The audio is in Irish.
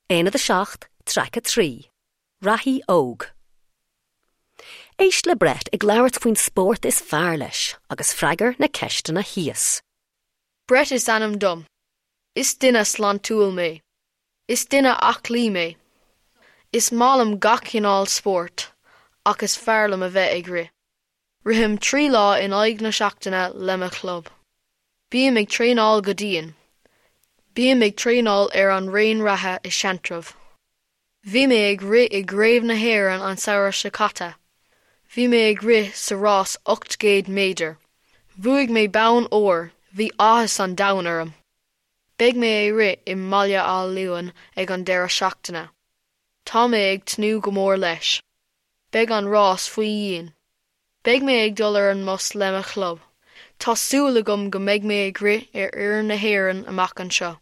Aonad 7, Traic 3, Reathaí Óg. Éist le Brett ag labhairt faoin spórt is fearr leis agus freagair na ceisteanna thíos. Brett is ainm dom. Is duine sláintiúil mé. Is duine aclaí mé. Is maith liom gach cineál spóirt, ach is fearr liom a bheith ag rith. Rithim 3 lá in aghaidh na seachtaine le mo chlub. Bím ag traenáil go dian. Bím ag traenáil ar an raon reatha i Seantrabh. Bhí mé ag rith i gCraobh na hÉireann an samhradh seo caite. Bhí mé ag rith sa rás 800 méadar. Bhuaigh mé bonn óir, bhí áthas an domhain orm. Beidh mé ag rith i mBaile Átha Luain ag an deireadh seachtaine. Tá mé ag tnúth go mór leis. Beidh an rás faoi dhíon. Beidh mé ag dul ar an mbus le mo chlub. Tá súil agam go mbeidh mé ag rith ar fhoireann na hÉireann amach anseo.